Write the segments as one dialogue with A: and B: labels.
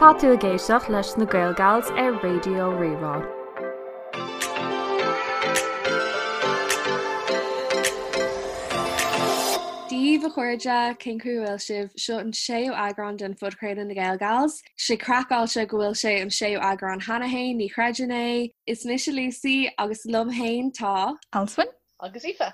A: Tá tú ag éisteacht leis na Gaelgals ar Raidió Rí-Rá.
B: Dia daoibh a chairde, cén chaoi a bhfuil sibh? Seo an séú eagrán den phodchraoladh na Gaelgals. Sé craiceáilte go bhfuil sé an séú eagrán cheana féin, ní chreidim é. Is mise Lucy agus liom féin tá.
C: Alswyn.
D: Agus Aoife.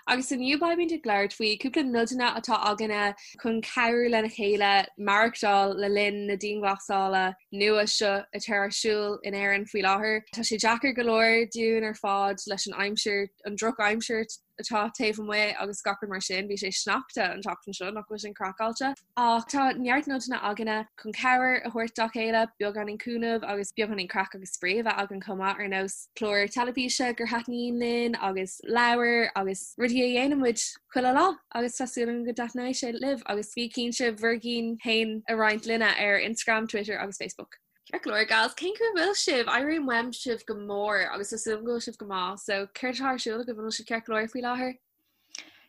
B: Agus inniu beimid ag labhairt faoi cúpla nodanna atá againne chun cabhrú lena chéile maireachtáil le linn na dianghlasála nua seo atá ar siúl in Éirinn faoi láthair. Tá sé deacair go leor dúinn ar fad leis an aimsir, an drochaimsir atá taobh amuigh agus gach rud mar sin. Bhí sé sneachta an tseachtain seo, nach bhfuil sin craiceáilte? Ach tá neart nodanna againne chun cabhair a thabhairt dá chéile, beagáinín cúnamh agus beagáinín craic agus spraoi a bheith againn chomh maith, ar nós clár teilifíse gur thaitníonn linn agus leabhair agus rudaí a dhéanann muid chuile lá agus tá súil agam go dtaitneoidh sé libh agus bí cinnte bhur gcinn féin a roinnt linne ar Instagram, Twitter agus Facebook. Ceart go leor, gals, cén chaoi a bhfuil sibh? Airím uaim sibh go mór agus tá súil agam go bhfuil sibh go maith, so céard atá ar siúl agaibh, an bhfuil sibh ceart go leor faoi láthair?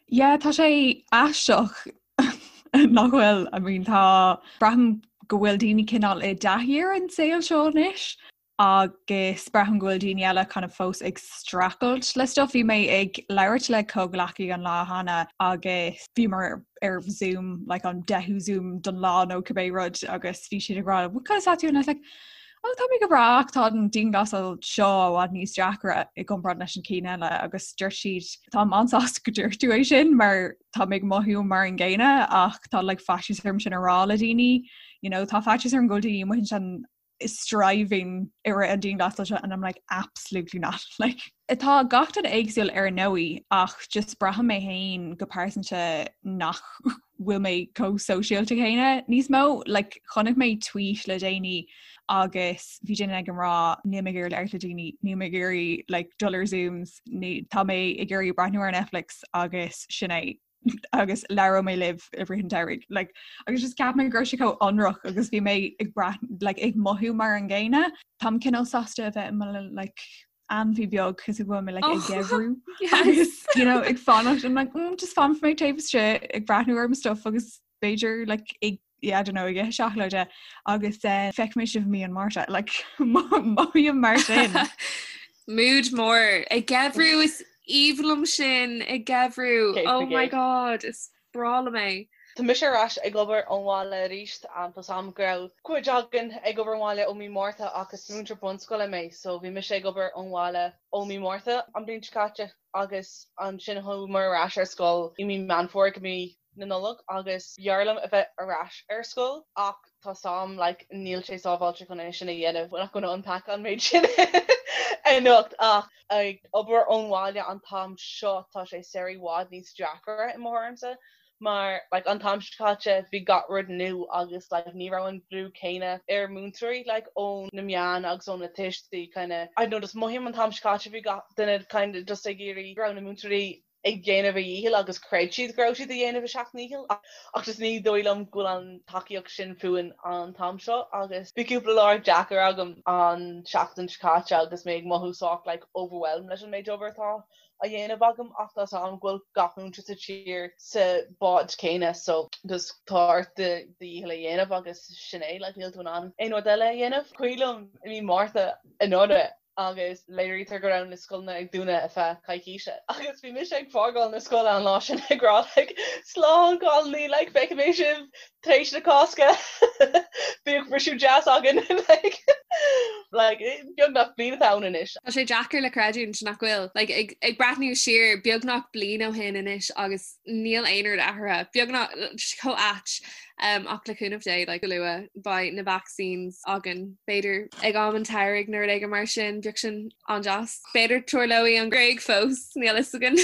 C: Yeah, tá sé aisteach nach bhfuil, I mean tá, braithim go bhfuil daoine cineál i dtaithí ar an saol seo anois agus braithim go bhfuil daoine eile kind of fós ag streachailt le stuff. Bhí mé ag labhairt le comhghleacaí an lá cheana agus bhíomar ar Zoom, like an deichiú Zoom don lá nó cibé rud agus bhí siad ag rá, "What conas atá tú?" And I was like, Oh tá mé go breá ach tá an dianghlasáil seo i bhfad níos deacra i gcomparáid leis an cinn eile agus dúirt siad táim an-sásta go dúirt tú é sin mar tá mé ag mothú mar an gcéanna ach tá like faitíos orm sin a rá le daoine you know tá faitíos orm go bhfuil daoine amuigh ansin striving i rith an dianghlasáil seo and I'm like absolutely not like Tá gach duine éagsúil ar ndóigh ach just braithim mé féin go pearsanta nach bhfuil mé chomh sóisialta céanna níos mó. Like, chonaic mé tweet le déanaí agus bhí duine ag rá níl mé ag iarraidh labhairt le daoine, níl mé ag iarraidh like, dul ar Zooms, ní, tá mé ag iarraidh breathnú ar Netflix agus sin é. agus labhróidh mé libh i rith an tsamhraidh. Like, agus just ceap mé go raibh sé chomh ionraic agus bhí mé ag brath like, ag mothú mar an gcéanna. Táim cineál sásta a bheith i mo like, ainmhí beag cos go bhfuil mé like, ag oh, geimhriú agus you know, ag fanacht I'm like, mm, just fanfaidh mé taobh istigh ag breathnú ar mo stuff agus b'fhéidir like, ag yeah, I don't know, ag ithe seacláide agus uh, feicfidh mé sibh mí an Márta like, mothaím mar sin.
B: Mood mór ag geimhriú is aoibhinn liom sin ag geimhriú. Oh my god, is breá liom é.
D: Tá mise ar ais ag obair ón bhaile arís tá 's a'm go raibh cuid againn ag obair ón bhaile ó mí Márta ach is múinteoir bunscoile mé so bhí mise ag obair ón bhaile ó mí Márta an bhliain seo caite agus ansin chuamar ar ais ar scoil i mí Meán Fómhair go mí na Nollag agus b'fhearr liom a bheith ar ais ar scoil ach tá 's a'm like níl sé sábháilte chun é sin a dhéanamh, we're not gonna unpack an méid sin anocht ach ag obair ón bhaile an t-am seo tá sé i bhfad níos deacra i mo thuairimse mar like an t-am seo caite bhí gach rud nua agus like ní raibh an brú céanna ar múinteoirí like ó na meáin agus ó na tuistí kind of I don't know just mothaím an t-am seo caite bhí gach duine kind of just ag iarraidh go raibh na múinteoirí ag déanamh a dhícheall agus chreid siad go raibh siad ag déanamh a seacht ndícheall ach just ní dóigh liom go bhfuil an tacaíocht sin fúinn an t-am seo agus bhí cúpla lá deacair agam an seachtain seo caite agus mé ag mothú sách like overwhelmed leis an méid obair atá á dhéanamh agam ach tá 's a'm go bhfuil gach múinteoir sa tír sa bád céanna so just tá ort do dhícheall a dhéanamh agus sin é like níl tú in ann aon rud eile a dhéanamh. Cuimhin liom i mí Márta anuraidh agus léirítear go raibh na scoileanna ag dúnadh ar feadh coicíse agus bhí mise ag fágáil na scoile an lá sin ag rá like slán cailíní like feicfidh mé sibh tar éis na Cásca bíodh briseadh deas againn like like beagnach bliain atá ann anois.
B: Tá sé deacair le creidiúint nach bhfuil like ag ag breathnú siar beagnach bliain ó shin anois agus níl aon rud athraithe beagnach chomh ait Ach le cúnamh Dé, like, go luath, beidh na vaccines againn, b'fhéidir ag am an tsamhraidh nó rud éigin mar sin, bheadh sin an-deas. B'fhéidir tarlóidh an Ghréig fós, níl fhios againn.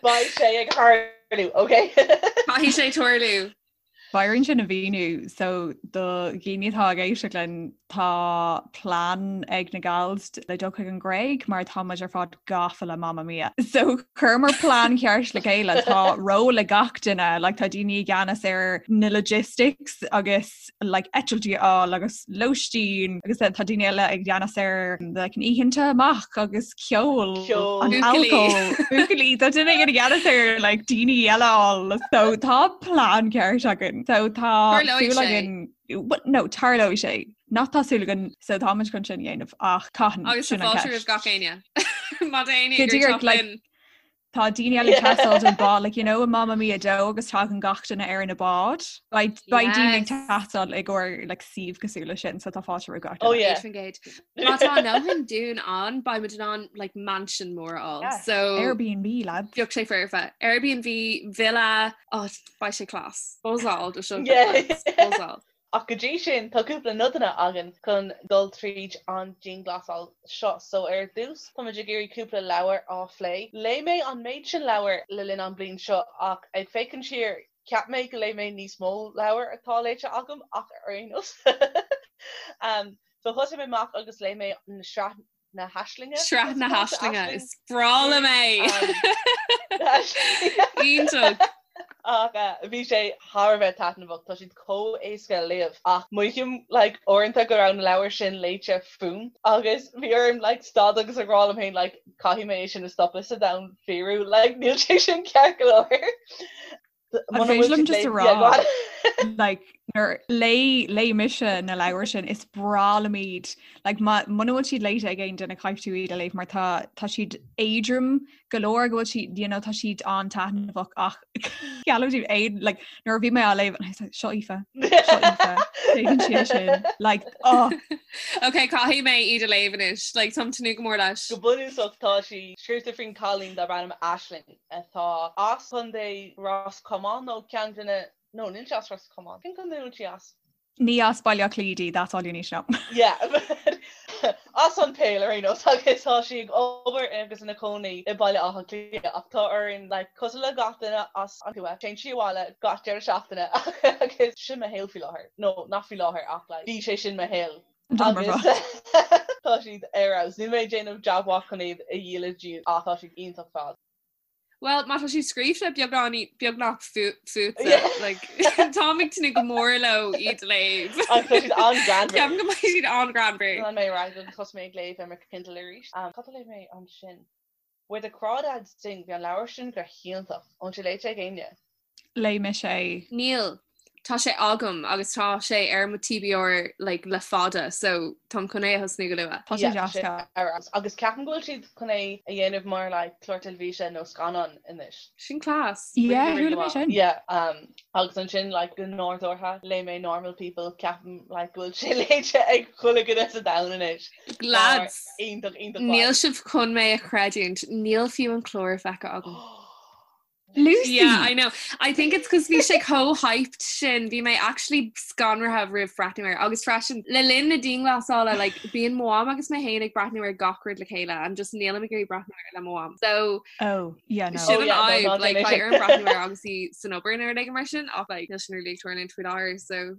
D: Beidh sé ag tarlú, ok?
B: Caithfidh sé tarlú.
C: Beidh orainn sin a mhíniú, so do dhaoine atá ag éisteacht linn, tá plean ag na gals le dul chuig an Ghréig mar tá muid ar fad gafa le Mamma Mia. So chuireamar plean ceart le chéile tá ról ag gach duine, like, tá daoine i gceannas ar na logistics agus like, eitiltí a fháil agus lóistín agus tá daoine eile i gceannas ar like, an oícheanta amach agus ceol
D: an
C: alcohol buachaillí tá duine i gceannas ar like, daoine eile a fháil so tá plean ceart againn. happening. So tá súil againn no tarlóidh sé nach tá súil againn so táimid chun sin a dhéanamh ach cathain
B: Agus
C: sin an
B: fáilte roimh
C: ceist.
B: gach éinne. Má tá éinne
C: Go
B: ag iarraidh
C: díreach
B: teacht
C: like
B: linn.
C: Tá daoine eile ag teastáil don bád, like, you know, in Mamma Mia 2 agus tagann gach duine ar na báid. Beidh beidh daoine ag
B: Yes.
C: teastáil i gcomhair like, suíomh cosúil leis sin, so tá fáilte roimh gach
D: Oh
C: duine.
D: yeah.
B: 100%. Má tá a ndóthain dúinn ann, beidh muid in ann like, mansion mór a fháil.
D: Yes.
B: So
C: Airbnb, lads.
B: bheadh sé foirfe. Airbnb, villa, oh, beidh sé class. Buzzáil do seo.
D: Yeah.
B: Buzzáil.
D: Ach go dtí sin, tá cúpla nodanna againn chun dul tríd an dianghlasáil seo. So ar dtús, táimid ag iarraidh cúpla leabhar á phlé. Léigh mé an méid sin leabhar le linn an bliain seo ach ag féachaint siar, cheap mé go léigh mé níos mó leabhar atá léite agam ach ar aon nós. So thosaigh mé amach agus léigh mé na sraith na hAislinge.
B: Sraith na hAislinge, is breá liom é! Iontach!
D: Ach bhí sé thar a bheith taitneamhach, tá siad chomh éasca a léamh ach mothaím like uaireanta go raibh na leabhair sin léite fúm agus bhí orm like stad agus ag rá liom féin like caithfidh mé é sin a stopadh sa domhan fíorúil like níl sé sin ceart go leor.
C: An féidir liom just a rá like nuair léigh léigh mise na leabhair sin is breá liom iad like má muna bhfuil siad léite ag aon duine caithfidh tú iad a léamh mar tá tá siad éadrom go leor go bhfuil siad you know tá siad an-taitneamhach ach geallaim daoibh aon like nuair a bhí mé á léamh and I was like seo Aoife seo Aoife téann sí sin like oh
B: Ok, caithfidh mé iad a léamh anois, like táim tnúth go mór leis.
D: Go bunúsach tá sí scríofa faoin cailín darb ainm Aisling. atá as Contae Ros Comáin nó ceann de na, no, níl sí as Ros Comáin. Cén contae a bhfuil sí as?
C: Ní as Baile Átha Cliath di, that's all you need to know.
D: Yeah, as an Pale ar aon nós agus tá sí ag obair agus ina cónaí i Baile Átha Cliath ach tá orainn, like, cosúil le gach duine as an tuath, téann sí abhaile gach deireadh seachtaine agus sin mo shaol faoi láthair. No, nach faoi láthair ach like, bhí sé sin mo shaol. Agus tá siad ar fheabhas. Níl mé ag déanamh jab mhaith chun iad a dhíol daoibh ach tá siad iontach fad.
B: Well, má tá siad scríofa beagán beagnach fútsa, like, táim ag tnúth go mór leo iad a léamh.
D: Agus tá siad an-ghreannmhar.
B: Ceapaim go mbeidh siad an-ghreannmhar.
D: Lean mé ar aghaidh agus thosaigh mé ag léamh ar mo Kindle arís. Cad a léigh mé ansin? Where the Crawdads Sing, bhí an leabhar sin go hiontach. An bhfuil sé léite ag éinne?
C: Léigh mise é.
B: Níl. Tá sé agam agus tá sé ar mo TBR like le fada so táim chun é a thosnú go luath.
C: Tá sé deas.
D: Yeah, ar fheabhas. Agus ceapaim go bhfuil siad chun é a dhéanamh mar like clár teilifíse nó scannán anois.
B: Sin class.
C: Yeah, chuala mé sin.
D: Yeah, um, agus ansin like go nádúrtha léigh mé Normal People, ceapaim like go bhfuil sé léite ag chuile dhuine sa domhan anois.
B: Lads,
D: Iontach, iontach
B: níl sibh chun mé a chreidiúint, níl fiú an clár feicthe agam.
C: Lucy!
B: Yeah, I know. I think it's cos bhí sé chomh hyped sin, bhí mé actually scanraithe roimh breathnú air. Agus freisin, le linn na dianghlasála, like, bíonn mo mham agus mé féin ag breathnú ar gach rud le chéile and just nílim ag iarraidh breathnú air le mo mham. So,
C: Oh, yeah, no.
B: Sin
D: Oh,
B: an
D: yeah, no,
B: fhadhb,
D: ná
B: like,
D: déan é
B: beidh
D: sin.
B: orm breathnú air agus í san obair nó rud éigin mar sin, ach like, níl sin really ag tarlúint faoi láthair, so.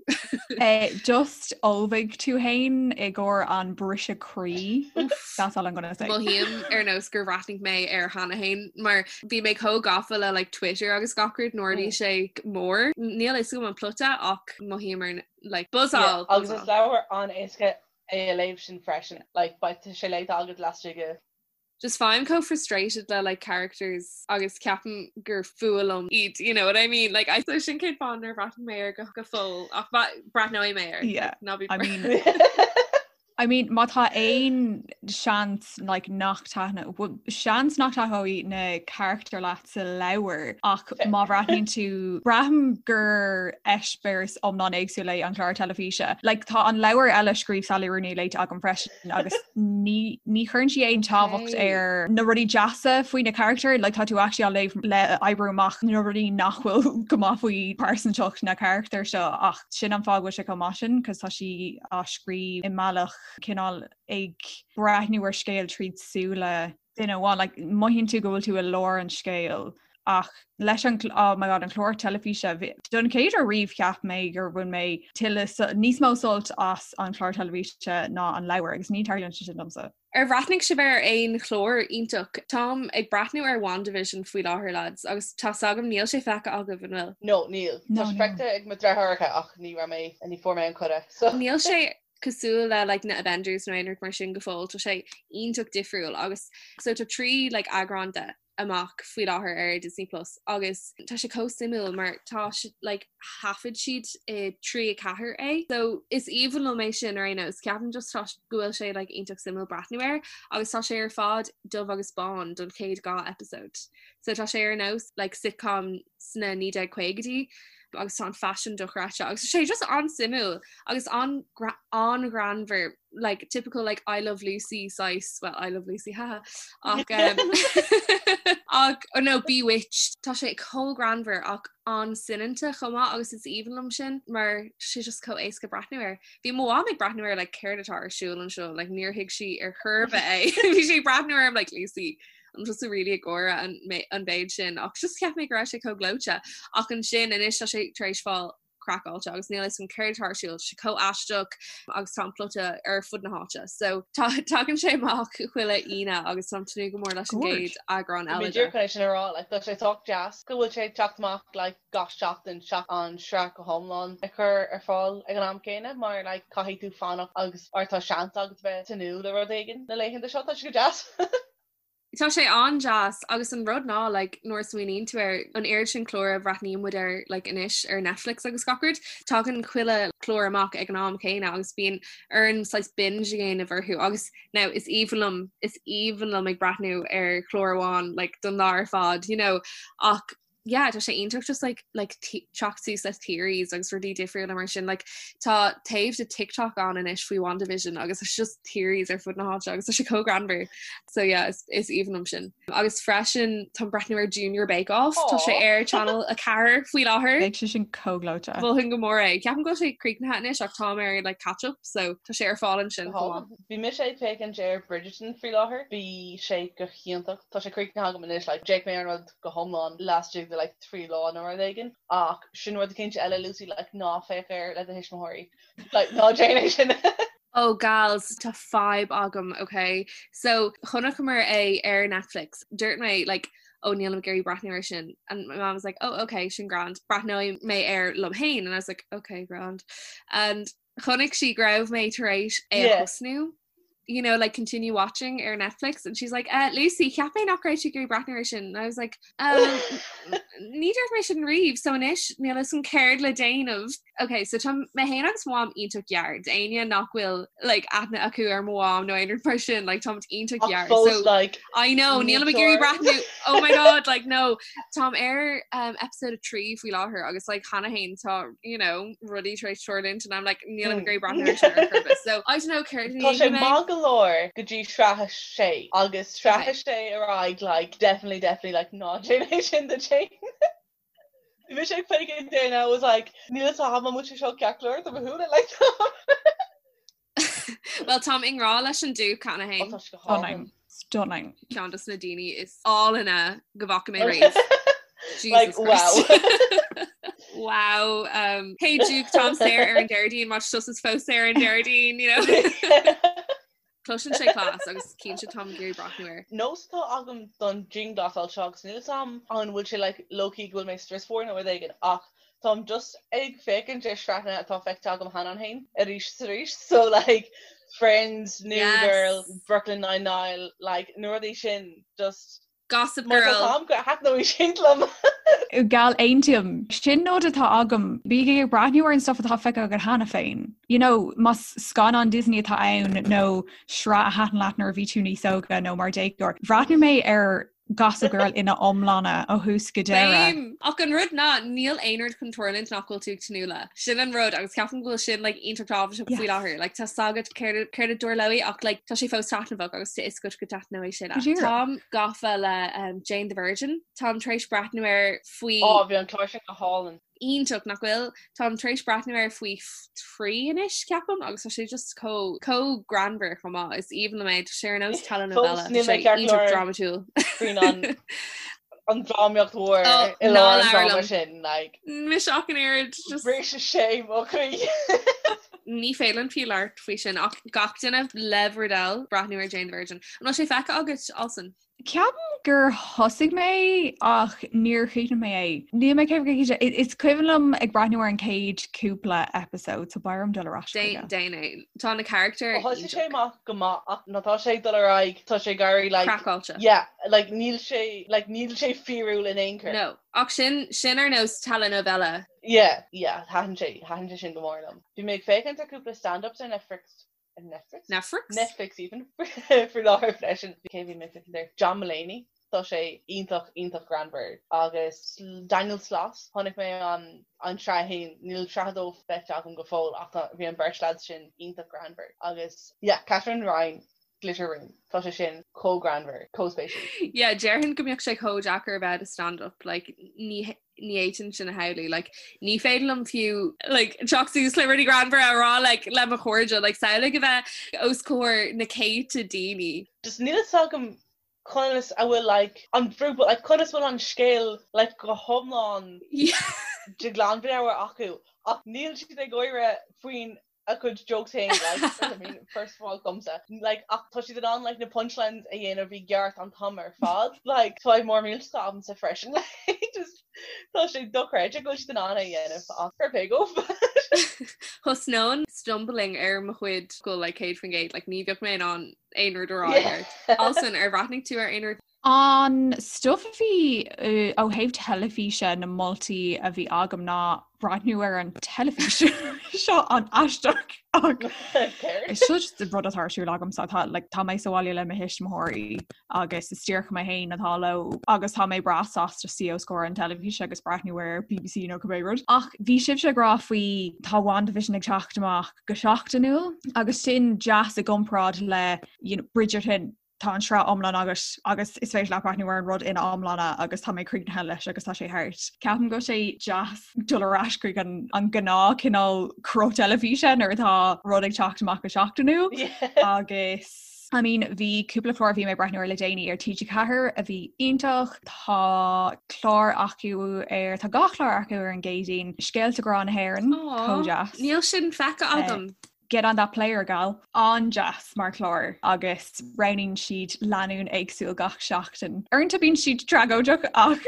C: Eh, just ullmhaigh tú féin i gcomhair an briseadh croí. That's all I'm gonna say.
B: Mothaím ar nós gur bhreathnaigh mé air cheana féin mar bhí mé chomh gafa le like, Twitter agus gach rud nuair a bhí
D: Mm.
B: sé mór. Níl a fhios agam an plota ach mothaím ar like,
D: Yeah,
B: buzzáil.
D: agus is leabhar an-éasca é a léamh sin freisin. Like, beidh sé léite agat laistigh de
B: Just faighim chomh frustrated le like characters agus ceapaim gur fuath liom iad, you know what I mean? Like I so sin cén fáth nár bhreathnaigh mé air go go fóill ach breathnóidh mé air.
C: Yeah,
B: Like, ná bí
C: I mean I mean má tá aon seans like nach taitne well, seans nach taitneoidh na carachtair leat sa leabhar ach má bhreathnaíonn tú braithim gur eispéireas iomlán éagsúil é an clár teilifíse. Like tá an leabhar eile a scríobh Sally Rooney léite agam freisin agus ní ní chuireann sí aon tábhacht ar na rudaí deasa faoi na carachtair, like tá tú actually á léamh le oibriú amach na rudaí nach bhfuil go maith faoi pearsantacht na carachtar seo ach sin an fáth go bhfuil sé chomh maith sin cos tá sí á scríobh i mbealach cineál ag breathnú ar scéal tríd súile duine amháin, like mothaíonn tú go bhfuil tú i lár an scéil ach leis an oh my god an clár teilifíse don chéad uair riamh cheap mé gur bhain mé tuilleadh níos mó sult as an chlár teilifíse ná an leabhar agus ní tarlaíonn sé sin domsa.
B: Ar bhreathnaigh sibh ar aon chlár iontach? Táim ag breathnú ar WandaVision faoi láthair lads agus tá's agam níl sé feicthe agaibh, an bhfuil?
D: No, níl.
C: No,
D: Tá sé
C: níl.
D: feicthe ag mo deartháireacha ach ní raibh mé, ní fuair mé an cuireadh so.
B: Níl sé cosúil le like na Avengers nó aon rud mar sin go fóill, tá sé iontach difriúil agus so tá 3 like eagrán de. amach faoi láthair ar Disney Plus agus tá sé chomh suimiúil mar tá like thaifead siad i 3 4 é. So is aoibhinn liom é sin ar aon nós ceapaim just tá go bhfuil sé like iontach suimiúil breathnú air agus tá sé ar fad dubh agus bán don chéad 2 episode. So tá sé ar nós like sitcom sna 1950idí agus tá an faisean dochreidte agus sé just an-suimiúil agus an an-ghreannmhar like typical like I love Lucy saghas well I love Lucy haha ach um, ach oh no Bewitched tá sé chomh greannmhar ach an-soineanta chomh maith agus is aoibhinn liom sin mar sé just chomh éasca breathnú air. Bhí mo mham ag breathnú air like céard atá ar siúl anseo like níor thuig sí ar chor ar bith é bhí sí ag breathnú air like Lucy an tusa really ag gáire an an mhéid sin ach just cheap mé go raibh sé chomh gleoite ach ansin anois tá sé tar éis fáil craiceáilte agus níl a fhios agam céard atá ar siúl sé chomh aisteach agus tá an plota ar fud na háite so tá tagann sé amach chuile Aoine agus táim ag tnúth go mór leis an gcéad eagrán eile de.
D: Chun é sin a rá like tá sé sách deas go bhfuil sé ag teacht amach like gach seachtain seachas an sraith go hiomlán a chur ar fáil ag an am céanna mar like caithfidh tú fanacht agus or tá seans agat bheith ag tnúth le rud éigin na laethanta seo tá sé go deas.
B: Tá sé an-deas agus an rud ná like nuair a smaoiníonn tú ar an oiread sin clár a bhreathnaíonn muid air like anois ar Netflix agus gach rud, tagann chuile chlár amach ag an am céanna agus bíonn orainn saghas binge a dhéanamh orthu agus now is aoibhinn liom is aoibhinn liom ag breathnú ar chlár amháin like don lá ar fad you know ach yeah tá sé iontach just like like teacht suas le theories agus rudaí difriúla mar sin like tá taobh de TikTok ann anois faoi WandaVision agus it's just theories ar fud na háite agus tá sé chomh greannmhar so yeah is, is aoibhinn liom sin. Agus freisin táim ag breathnú ar Junior Bake Off tá sé ar Channel 4 faoi láthair.
C: Beidh sé sin chomh gleoite.
B: Mholfainn go mór é. Ceapaim go bhfuil sé críochnaithe anois ach táim ar like catch up so tá sé ar fáil ansin chomh maith.
D: Bhí mise ag féachaint ar Bridgerton faoi láthair. Bhí sé go hiontach. Tá sé críochnaithe agam anois like d'fhéach mé ar an rud go hiomlán laistigh de like 3 lá nó rud éigin ach sin rud eicínt eile Lucy like ná féach air le do thuismitheoirí like ná déan é sin.
B: Oh gals tá fadhb agam ok so chonaiceamar é ar Netflix dúirt mé like oh nílim ag iarraidh breathnú air sin and my mom was like oh ok sin grand breathnóidh mé air liom féin and I was like ok grand and Chonaic sí go raibh mé tar éis é a thosnú you know, like continue watching ar Netflix and she's like, uh, Lucy, cheap mé nach raibh tú ag iarraidh breathnú air sin. And I was like, um, ní dúirt mé sin riamh, so anois níl a fhios agam céard le déanamh. Ok, so tá mé féin agus mo mham iontach gearr, d'éinne nach bhfuil like, aithne acu ar mo mham nó aon rud mar sin, like, táimid iontach
D: Ach
B: gearr.
D: fós,
B: So,
D: like,
B: I know, nílim ag iarraidh breathnú, oh my god, like, no, Táim ar um, episode 3 faoi láthair agus like, cheana féin tá you know, rudaí tar éis tarlúint and I'm like nílim ag iarraidh breathnú air sin ar chor ar bith. So I don't know céard a
D: Tá sé
B: dhéanfaidh mé.
D: maith go leor go dtí sraith a sé agus sraith a sé ar aghaidh like definitely definitely like ná déan é sin duit féin. Bhí mise ag féachaint air and I was like níl a fhios agam an bhfuil sé seo ceart go leor do mo shúile like
B: Well táim i ngrá leis an Duke cheana féin.
D: Tá sé go hálainn.
C: Stunning.
B: Ceann dos na daoine is álainne go bhfaca mé riamh.
D: Like,
B: Jesus Christ. Wow. Um, hey Duke, táim saor ar an Déardaoin, má tá tusa fós saor ar an Déardaoin, you know. Cloiseann sé class agus cinnte táim ag iarraidh breathnú air.
D: Nós atá agam don dianghlasáil seo agus níl a fhios agam an bhfuil sé like low-key go bhfuil mé strusmhar nó rud éigin ach Táim just ag féachaint ar sraitheanna atá feicthe agam cheana féin arís is arís so like Friends, New Girl, Brooklyn Nine-Nine like na rudaí sin just
B: Gossip Girl. Mar
D: tá am go thaitneoidh sin liom.
C: Gal aontaím. Sin nod atá agam. Bígí ag breathnú ar an stuff atá feicthe agat cheana féin. You know, más scannán Disney atá ann nó sraith a thaitin leat nuair a bhí tú níos óga nó mar déagóir. Bhreathnaigh mé ar Gossip Girl ina iomláine ó thús go deireadh.
B: Same! Ach an rud ná, níl aon rud chun tarlúint nach bhfuil tú ag tnúth le. Sin an rud agus ceapaim go bhfuil sin like iontach tábhachtach faoi láthair. Like tá a fhios agat céard céard a dtarlóidh ach like tá sé fós taitneamhach agus tá a fhios agat go dtaitneoidh sé leat. Táim gafa le um, Jane the Virgin. Táim tar éis breathnú air faoi
D: Ó, bhí an clár sin go hálainn.
B: iontach nach bhfuil? Táim tar éis breathnú air faoi thrí anois, ceapaim, agus tá sé just chomh chomh greannmhar chomh maith. Is aoibhinn liom é, tá sé ar nós telenovela.
D: Fós níl
B: Tá
D: mé
B: sé
D: ceart go
B: iontach
D: leor
B: drámatúil.
D: faoin an an drámaíocht mhór
B: Oh,
D: i
B: ná
D: lár an
B: labhair
D: dráma
B: liom.
D: sin, like.
B: Mise ach an oiread, just
D: Bhris sé mo chroí.
B: Ní féidir linn fiú labhairt faoi sin ach gach duine le bhur dtoil breathnú ar Jane the Virgin. An bhfuil sé feicthe agat, Alison?
C: Ceapaim gur thosaigh mé ach níor chríochnaigh mé é. Níl mé céad cinnte. Is cuimhin liom ag breathnú ar an chéad cúpla episode so beidh orm dul ar ais chuige.
B: Déan é. Tá na carachtair
D: Thosaigh sé amach go maith ach nuair atá sé ag dul ar aghaidh tá sé ag éirí like
B: Craiceáilte.
D: yeah like níl sé like níl sé fíorúil in aon chor.
B: No. Ach sin sin ar nós telenovela.
D: Yeah yeah thaitin sé thaitin sé sin go mór liom. Bhí mé ag féachaint ar cúpla stand-ups ar Netflix Netflix?
B: Netflix?
D: Netflix even faoi láthair freisin. Cé bhí mé ag féachaint air? John Mulaney. Tá sé iontach iontach greannmhar. Agus Daniel Sloss, chonaic mé an an sraith a haon, níl sraith a dó feicthe agam go fóill ach tá bhí an bheirt lads sin iontach greannmhar. Agus yeah, Katherine Ryan, Glitter Room, tá sé sin chomh greannmhar, chomh spéisiúil.
B: Yeah, déarfainn go mbeadh sé chomh deacair a bheith i do stand-up, like ní ní fhéadfainn sin a shamhlú like ní féidir liom fiú like teacht suas le rudaí greannmhara a rá like le mo chairde like samhlaigh a bheith os comhair na céadta daoine.
D: Just níl fhios agam conas a bhfuil like an brú but like conas bhfuil an scéal like go hiomlán de ghlanmheabhair acu ach níl siad ag gáire faoin a gcuid jokes féin like I mean first of all domsa like ach tá siad in ann like na punchlines a dhéanamh i gceart an t-am ar fad like tá mór millteach agamsa freisin like just tá sé dochreidte go bhfuil siad in ann é a dhéanamh ach fair play dóibh.
B: Thosnóinn stumbling ar mo chuid go like 100% like ní bheadh mé in ann aon rud a rá i gceart. Alison ar bhreathnaigh tú ar aon rud?
C: An stuff a bhí ó thaobh teilifíse na moltaí a bhí agam ná breathnú ar an teilifís seo an-aisteach ach is seo just rud atá ar siúl agamsa tá like, tá mé sa bhaile le mo thuismitheoirí agus is díreach mé féin atá leo agus tá mé breá sásta suí os comhair an teilifíse agus breathnú ar BBC nó cibé rud. Ach bhí sibhse ag rá faoi tá WandaVision ag teacht amach go seachtainiúil agus sin deas i gcomparáid le you know, Bridgerton tá an sraith iomlán agat agus is féidir leat breathnú ar an rud ina iomláine agus tá mé críochnaithe leis agus tá sé thart. Ceapaim go bhfuil sé deas dul ar ais chuig an an gnáth cineál cruth teilifíse nuair atá rud ag teacht amach go seachtainiúil agus I mean bhí cúpla clár a bhí mé ag breathnú ar le déanaí ar TG4 a bhí iontach, tá clár acu ar tá dhá chlár acu ar an gCéadaoin, Scéalta Grá na hÉireann, chomh deas.
B: Níl sin feicthe agam.
C: Get on that player gal. An-deas mar chlár agus roghnaíonn siad lánúin éagsúil gach seachtain. Uaireanta bíonn siad tragóideach ach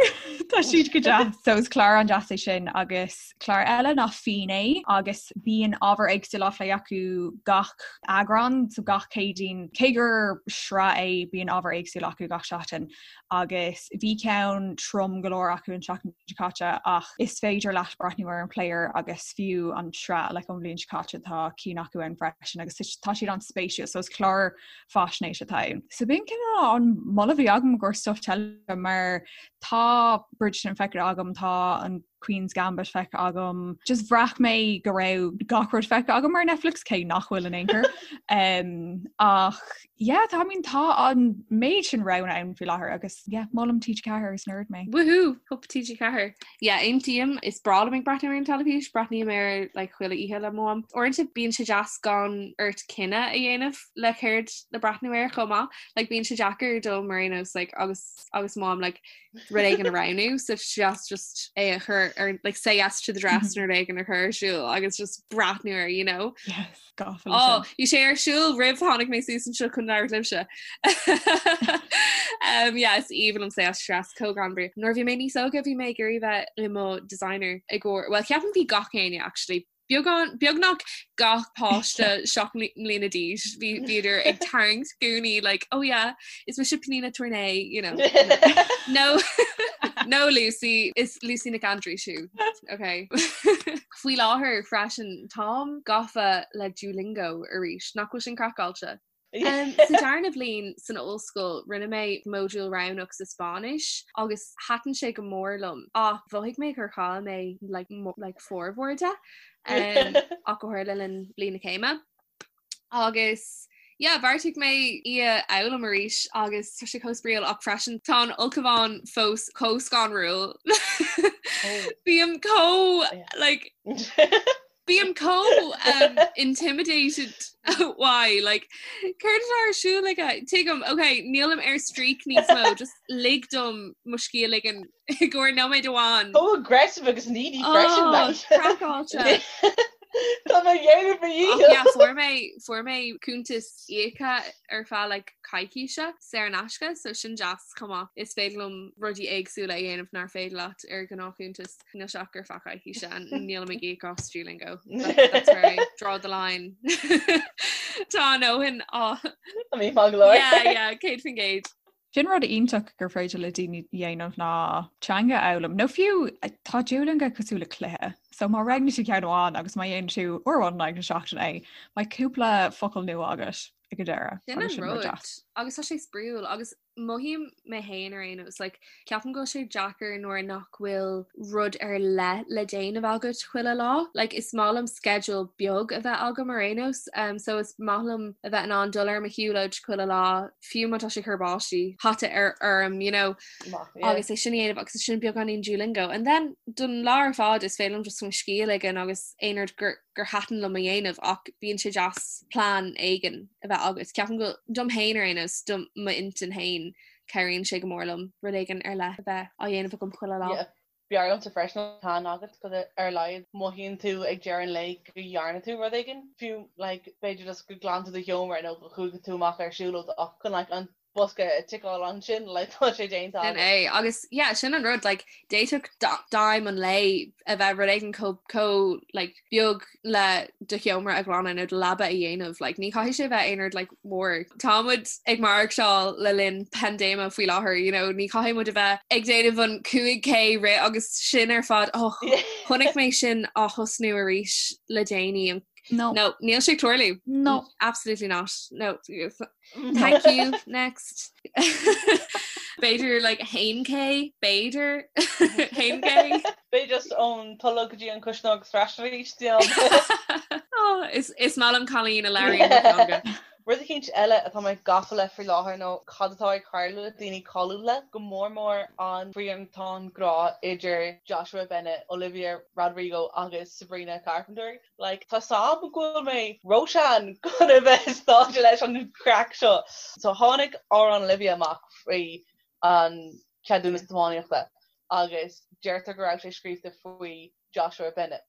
C: tá siad go deas. So is clár an-deas é sin agus clár eile ná Fínné agus bíonn ábhar éagsúil á phlé acu gach eagrán, so gach Céadaoin. Cé gur sraith é bíonn ábhar éagsúil acu gach seachtain. agus bhí ceann trom go leor acu an tseachtain seo caite ach is féidir leat breathnú ar an player agus fiú an tsraith like ón bhliain seo caite tá cinn acu ann freisin agus tá siad an-spéisiúil so is clár faisnéise atá ann. So b'in cineál an moladh a bhí agam i gcomhair stuff teilifíse mar tá Bridgerton feicthe agam tá an Queen's Gambit feicthe agam. Just bhraith mé go raibh gach rud feicthe agam ar Netflix cé nach bhfuil in aon chor. Um, ach yeah, tá I mean, tá an méid sin roghanna ann faoi láthair agus yeah, molaim TG4 is nerd mé.
B: Woohoo! Hup TG4. Yeah, aontaím, is breá liom ag breathnú ar an teilifís, breathnaím air like chuile oíche le mo mham. Uaireanta bíonn sé deas gan ort cinneadh a dhéanamh le céard le breathnú air chomh maith. Like bíonn sé deacair dom mar aon nós like agus agus mo mham like rud éigin a roghnú so just just é a chur ar like say yes to the dress nó rud éigin a chur ar siúl agus just breathnú air you know
C: yes gafa
B: oh bhí sé ar siúl roimh tháinig mé suas anseo chun labhairt libhse um yeah is aoibhinn liom say yes to the dress chomh greannmhar nuair bhí mé níos óige bhí mé ag iarraidh bheith i mo designer i gcomhair well ceapaim bhí gach éinne actually Beagán, beagnach gach páiste 7 mbliana d'aois, bhí bhíodar ag tarraingt gúnaí like, oh yeah, is mise Pnina Tornay, you know. No, no Lucy, is Lucy Nic Aindriúis thú. Okay. Faoi láthair freisin, táim gafa le Duolingo arís, nach bhfuil sin craiceáilte? Sa darna bhliain san ollscoil rinne mé modúl roghnach sa Spáinnis agus thaitin sé go mór liom ach mhothaigh mé gur chaill mé like, like formhór de um, ach go háirithe le linn bliain na céime. Agus yeah, bheartaigh mé í a fhoghlaim arís agus tá sé chomh spraíúil ach freisin tá an ulchabhán fós chomh scanrúil.
D: Oh.
B: Bím chomh like Bím chomh um, intimidated why like céard atá ar siúl aige tuigim ok nílim ar streak níos mó just lig dom mo scíth a ligean i gcomhair nóiméad amháin
D: Chomh aggressive agus needy freisin
B: Oh, craiceáilte.
D: Tá mé ag déanamh mo dhícheall.
B: Yeah, fuair mé fuair mé cuntas íoctha ar feadh like coicíse saor in aisce, so sin deas chomh maith. Is féidir liom rudaí éagsúla a dhéanamh nár féidir leat ar ghnáthchuntas. Níl sé ach ar feadh coicíse and nílim ag íoc as Duolingo. That, that's where I draw the line. Tá a ndóthain á
D: I mean, maith go leor.
B: Yeah, yeah, 100%.
C: Sin rud iontach gur féidir le daoine dhéanamh ná teanga a fhoghlaim. Nó fiú tá Duolingo cosúil le cluiche. So má roghnaíonn tú ceann amháin agus má dhéanann tú uair amháin in aghaidh na seachtaine é, beidh cúpla focal nua agat ag an deireadh.
B: Sin an rud. Agus tá sé spraíúil agus mothaím mé féin ar aon nós like ceapaim go bhfuil sé deacair nuair nach bhfuil rud ar leith le déanamh agat chuile lá. Like is maith liom schedule beag a bheith agam ar aon nós um, so is maith liom a bheith in ann dul ar mo shiúlóid chuile lá fiú má tá sé ag cur báistí hata ar orm you know agus é sin a dhéanamh agus sin beagáinín Duolingo and then don lá ar fad is féidir liom just mo scíth a ligean agus aon rud gur gur thaitin liom a dhéanamh ach bíonn sé deas plean éigin a bheith agat. Ceapaim go dom féin ar aon nós do m'intinn féin cabhraíonn sé go mór liom rud éigin ar leith a bheith á dhéanamh agam chuile lá.
D: Yeah. B'fhearr liomsa freisin plean agat go ar a laghad mothaíonn tú ag deireadh an lae go dhearna tú rud éigin, fiú like b'fhéidir just go ghlan tú do sheomra nó go chuaigh tú amach ar siúlóid ach chun like an bosca a ticeáil ansin like tá sé déanta
B: Sin é agus yeah sin an rud like d'fhéadfadh d'aidhm an lae a bheith rud éigin chomh chomh like beag le do sheomra a ghlanadh nó do leaba a dhéanamh like ní chaithfidh sé bheith aon rud like mór. Tá muid ag maireachtáil le linn paindéime faoi láthair you know ní chaithfidh muid a bheith ag déanamh an 5K rith agus sin ar fad oh chonaic mé sin á thosnú arís le déanaí an
C: No.
B: No, níl sé ag tarlú.
C: No.
B: Absolutely not. No. Thank you. Next. B'fhéidir like 1K, b'fhéidir 1K.
D: B'fhéidir just ón tolg go dtí an cuisneoir agus ar ais arís
B: Oh, is is maith liom cailín a labhraíonn mo theanga.
D: Rud eicínt eile atá mé gafa le faoi láthair nó cad atá ag tarlú le daoine cáiliúla, go mór mór an triantán grá idir Joshua Bennett, Olivia Rodrigo agus Sabrina Carpenter. Like, tá 's a'm go bhfuil mé róshean chun a bheith sáite leis an chraic seo. So tháinig amhrán Olivia amach faoi an ceadúnas tiománaíochta agus deirtear go raibh sé scríofa faoi Joshua Bennett.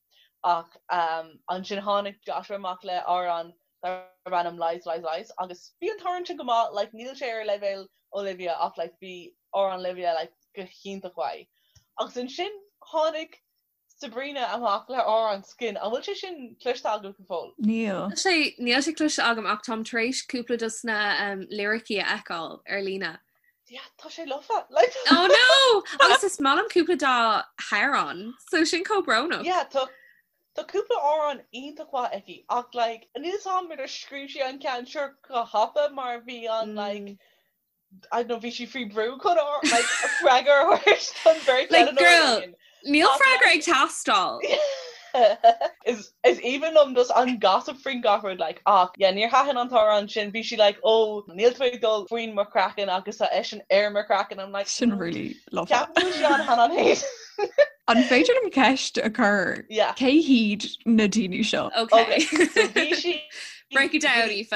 D: Ach um, ansin tháinig Joshua amach le amhrán darb ainm Lies, Lies, Lies agus bhí an t-amhrán sin go maith, like, níl sé ar leibhéal Olivia ach like, bhí amhrán Olivia like, go hiontach mhaith. Agus ansin tháinig Sabrina amach le amhrán Skin. An bhfuil sé sin cloiste agaibh go fóill?
C: Níl.
B: Níl sé níl sé cloiste agam ach táim tar éis cúpla dos na um, liricí a fheiceáil ar líne.
D: Yeah, tá sé lofa. Like...
B: Oh no! Agus is maith liom cúpla dá hamhráin, so sin chomh brónach.
D: Yeah, tá tá cúpla amhrán iontach mhaith aici ach like níl 's a'm ar scríobh sí an ceann seo go thapa mar bhí an like mm. I don't know, bhí sí faoi brú chun like, freagra a thabhairt don bheirt
B: Like,
D: eile
B: girl, níl freagra ag teastáil.
D: Is is aoibhinn liom just an gossip faoin gach rud like ach yeah níor thaitin an t-amhrán sin bhí sí like oh níl tú ag dul faoin mo chraiceann agus tá eisean ar mo chraiceann I'm like
C: Sin really lofa.
D: Ceapaim go bhfuil sí an han an
C: An féidir liom ceist a chur?
D: Yeah.
C: Cé hiad na daoine seo?
B: Okay.
D: Okay, so bhí sí
B: Break it down, Aoife.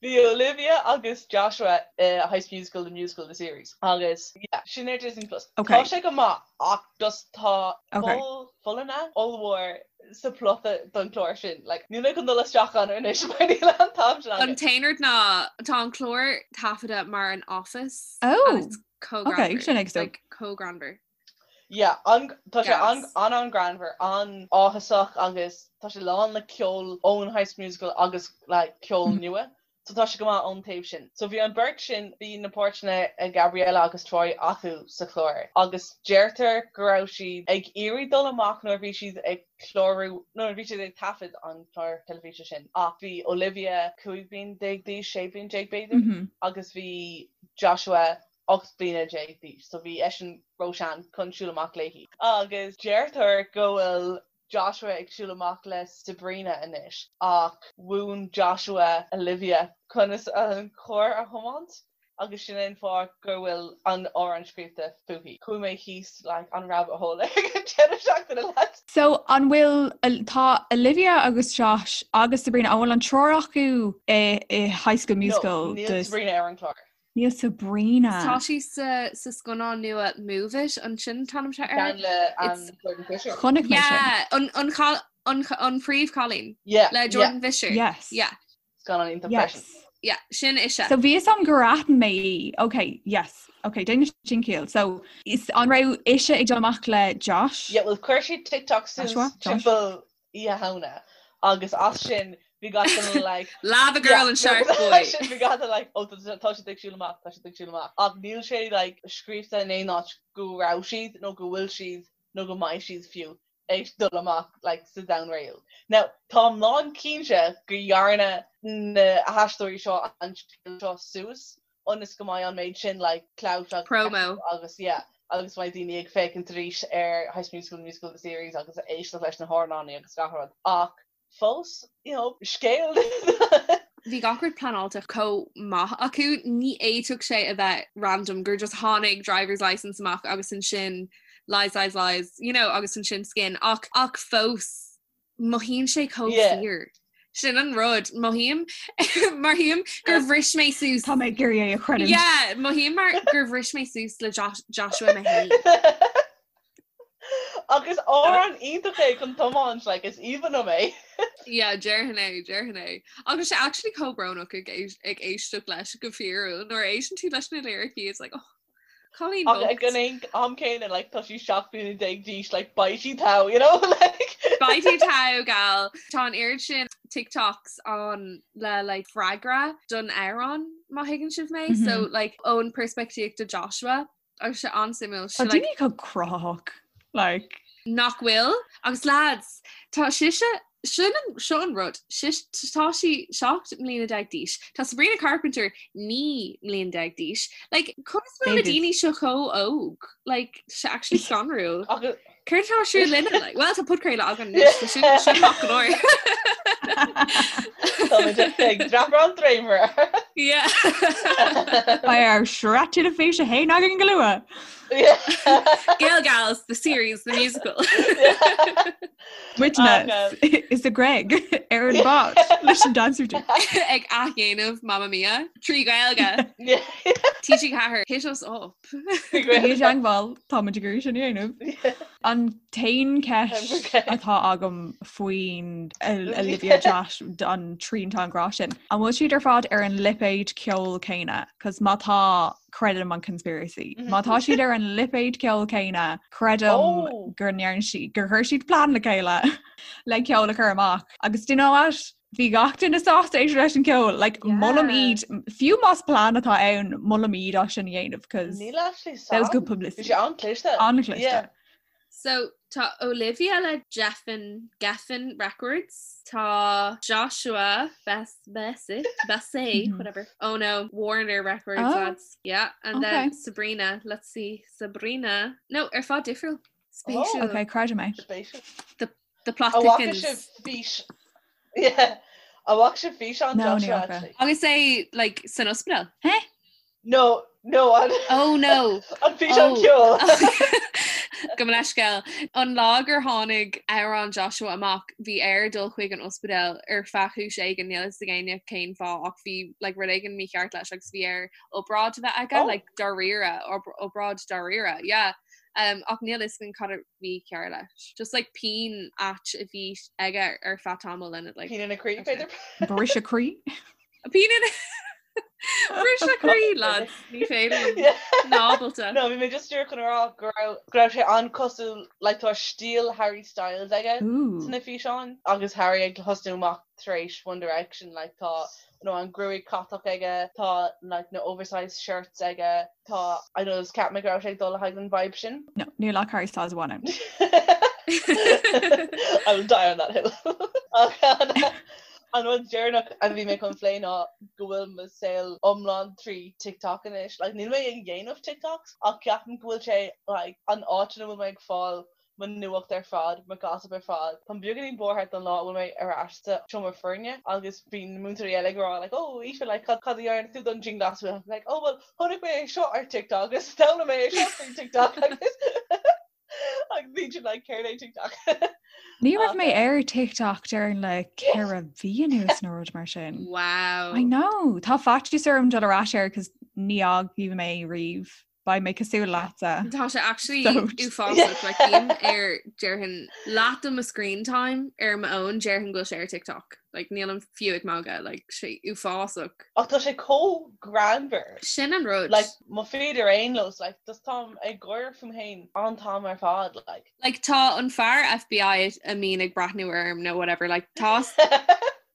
D: Bhí Olivia agus Joshua i High School Musical, The Musical, The Series agus yeah, sin ar Disney Plus.
C: Okay.
D: Tá sé go maith ach just tá
C: Okay.
D: poll folláine ollmhór sa plota don chlár sin. Like, níl mé chun dul isteach ann anois mar níl an t-am sin
B: An
D: agam.
B: t-aon rud ná tá an clár taifeadta mar an Office
C: Oh,
B: and it's chomh
C: okay,
B: greannmhar.
C: sin ag so.
B: Like, chomh greannmhar.
D: Yeah, an, tá sé an,
B: Gas.
D: an an-ghreannmhar, an-áthasach agus tá sé lán le ceol ón High School Musical agus like ceol
C: Mm.
D: nua. So tá sé go maith ón taobh sin. So bhí an beirt sin, bhí na páirteanna ag Gabriella agus Troy acu sa chlár agus deirtear go raibh siad ag iarraidh dul amach nuair a bhí siad ag clárú, nuair a bhí siad ag taifead an chlár teilifíse sin ach bhí Olivia 15 bliain d'aois, 16 bliain b'fhéidir,
C: Mm -hmm.
D: agus bhí Joshua 18 bliana d'aois, so bhí eisean róshean chun siúl amach léi. Agus deirtear go bhfuil Joshua ag siúl amach le Sabrina anois, ach mhúin Joshua Olivia conas an carr a thiomáint agus sin é an fáth go bhfuil an amhrán scríofa fúithi. Chuaigh mé thíos like an rabbit hole ag an deireadh seachtaine lads.
C: So an bhfuil, tá Olivia agus Josh agus Sabrina, an bhfuil an triúr acu i High School Musical?
D: No, níl Sabrina ar an chlár.
C: Níl Sabrina.
B: Tá sí sa sa scannán nua Move It an sin an t-ainm atá air.
D: Ceann le um, Jordan Fisher.
C: Chonaic mé sin.
B: Yeah, an an chal- an an phríomhchailín
D: Yeah,
B: le
D: yeah.
B: Jordan Fisher.
C: Yes.
B: Yeah,
D: Scannán iontach freisin.
C: Yes.
B: yeah, sin ise.
C: So bhí fhios a'm gur aithin mé í. Ok, yes. Ok, déanann sin ciall. So is an raibh ise ag dul amach le Josh?
D: Yeah, well chuir sí TikTok suas
C: Joshua? Josh?
D: timpeall Oíche Shamhna agus as sin bhí gach duine like
B: Lava Girl and Shark Boy.
D: sin bhí gach duine like oh tá tá siad ag siúl amach tá siad ag siúl amach ach níl sé like scríofa in aon áit go raibh siad nó go bhfuil siad nó go mbeidh siad fiú ag dul amach like sa domhan réal. Now táim lán cinnte go dhearna na haisteoirí seo an scéal seo suas ionas go mbeidh an méid sin like clout agus
B: Promo.
D: agus yeah agus mbeidh daoine ag féachaint arís ar High School Musical, Musical the Series agus ag éisteacht leis na hamhráin agus gach rud ach fós you know scéal
B: Bhí gach rud pleanáilte chomh maith acu, ní fhéadfadh sé a bheith random gur just tháinig driver's license amach agus ansin lies lies lies you know agus ansin skin ach ach fós mothaíonn sé chomh
D: Yeah.
B: fíor. Sin an rud mothaím mothaím gur bhris mé suas.
C: Tá mé ag iarraidh é a chreidiúint.
B: Yeah, mothaím mar gur bhris mé suas le Josh, Joshua mé féin.
D: Agus amhrán iontach é chun tiomáint like is aoibhinn liom é.
B: Yeah, déarfainn é, déarfainn é. Agus sé actually chomh brónach ag éis- ag éisteacht leis go fíorúil nuair a éisteann tú leis na liricí it's like oh, Cailín
D: Ach ag
B: bocht.
D: an aon am céanna like tá sí 17 bliana d'aois like beidh sí togha you know like.
B: Beidh tú togha gal. Tá an oiread sin TikToks ann le like freagra don amhrán má thuigeann sibh mé
C: Mhm.
B: so like ón peirspictíocht de Joshua agus sé an-suimiúil
C: Tá
B: sé like
C: daoine chomh cruthaitheach like
B: nach bhfuil agus lads tá sise sin an seo an rud sis tá sí 17 mbliana d'aois Tá Sabrina Carpenter 19 mbliana d'aois like conas bhfuil na
C: Babies.
B: daoine seo chomh óg like sé actually scanrúil
D: Agus
B: Céard atá ar siúl linne like well tá podchraoladh againn anois so sin sin maith go leor.
D: Tá muid ag dreapadh an dréimire.
B: Yeah.
C: Beidh ár sraith teilifíse féin againn go luath.
D: Yeah.
B: Gael Gals, the series, the musical.
C: Muidne is a Greg ar an bád leis an dancer dude.
B: Ag athdhéanamh Mamma Mia trí Ghaeilge.
D: Yeah.
B: TG4 hit us up.
C: Bí i dteagmháil táimid ag iarraidh sin a dhéanamh. An t-aon cheist atá agam faoin Olivia Josh an triantán grá sin. An bhfuil siad ar fad ar an lipéad ceoil céanna? Cos má tá creidim an conspiracy. Má tá siad ar an lipéad ceoil céanna, creidim
D: Oh.
C: gur ndearna siad gur chuir siad plean le chéile le ceol a chur amach. Agus do you know what? Bhí gach duine sásta éisteacht leis an ceol, like
B: Yeah.
C: molaim iad, fiú más plean atá ann, molaim iad as sin a dhéanamh cos
D: Níl actually
C: that was good
D: Bhí
C: publicity.
D: sé an-chliste.
C: An-chliste.
D: Yeah.
B: So tá Olivia le Geffen Geffen Records, tá Joshua Bess Bessy Bessy
C: Mhm.
B: whatever. Oh no, Warner Records
C: Oh.
B: lads. Yeah, and then
C: Okay.
B: Sabrina, let's see. Sabrina. No, ar fad difriúil.
D: Oh.
B: Spéisiúil.
C: Okay, creidim é.
D: Spéisiúil.
B: The plot
D: An bhfaca
B: thickens.
D: sibh fís Yeah. An bhfaca sibh físeán
C: No, ní
D: Joshua
C: fhaca.
D: actually.
B: Agus é like san ospidéal.
C: Hé?
D: No, no an
B: Oh no.
D: an físeán
B: Oh.
D: ceoil.
B: Gabh mo leithscéal. An lá gur tháinig amhrán Joshua amach, bhí air dul chuig an ospidéal ar feadh cúis éigin, níl fhios ag éinne cén fáth ach bhí like, rud éigin mícheart leis agus bhí air obráid a bheith aige,
D: Oh.
B: like, dáiríre, obráid dáiríre, yeah. Um, ach níl fhios againn cad a bhí cearr leis. Just like pian ait a bhí aige ar feadh tamaill and it like
D: Pian ina chroí
B: Okay.
D: b'fhéidir.
C: Briseadh croí?
B: Pian ina Briseadh croí lads, ní féidir liom.
D: Yeah.
B: Ná ábalta.
D: No, bhí mé just díreach chun a rá go raibh go raibh sé an-cosúil like tá stíl Harry Styles aige
C: Ooh.
D: sna físeáin agus Harry ag tosnú amach tar éis One Direction like tá you know, an gruaig catach aige, tá like na oversized shirts aige, tá I know is ceap mé go raibh sé ag dul le haghaidh an vibe sin.
C: No, níl ach Harry Styles amháin ann.
D: I will die on that hill. Ach an an rud deireanach a bhí mé chun plé ná go bhfuil mo saol iomlán trí TikTok anois. Like, níl mé ag déanamh TikToks ach ceapaim go bhfuil sé like, an áit ina bhfuil mé ag fáil mo nuacht ar fad, mo gossip ar fad. Táim beagáinín buartha don lá a bhfuil mé ar ais sa seomra foirne agus bíonn na múinteoirí eile ag rá like oh Aoife like cad cad a dhearna tú don dianghlasáil? I'm like oh well chonaic mé é seo ar TikTok agus d'fhoghlaim mé é seo faoi TikTok agus agus bíonn siad like céard é TikTok?
C: Ní raibh mé
D: Ach,
C: ar TikTok déarfainn le 4 mhí anuas nó rud mar sin.
B: Wow.
C: I know. Tá faitíos orm dul ar ais air cos. Ní fhágfaidh mé riamh. Beidh mé cosúil leatsa.
B: Tá sé actually uafásach like bím ar déarfainn leath de mo screen time ar m'fhón déarfainn go bhfuil sé ar TikTok. Like nílim fiú ag magadh like sé uafásach.
D: Ach tá sé chomh greannmhar.
B: Sin an rud.
D: Like mo feed ar aon nós like just táim ag gáire fúm féin an t-am ar fad
B: like. Like tá an fear FBI a mbíonn ag breathnú orm nó whatever like tá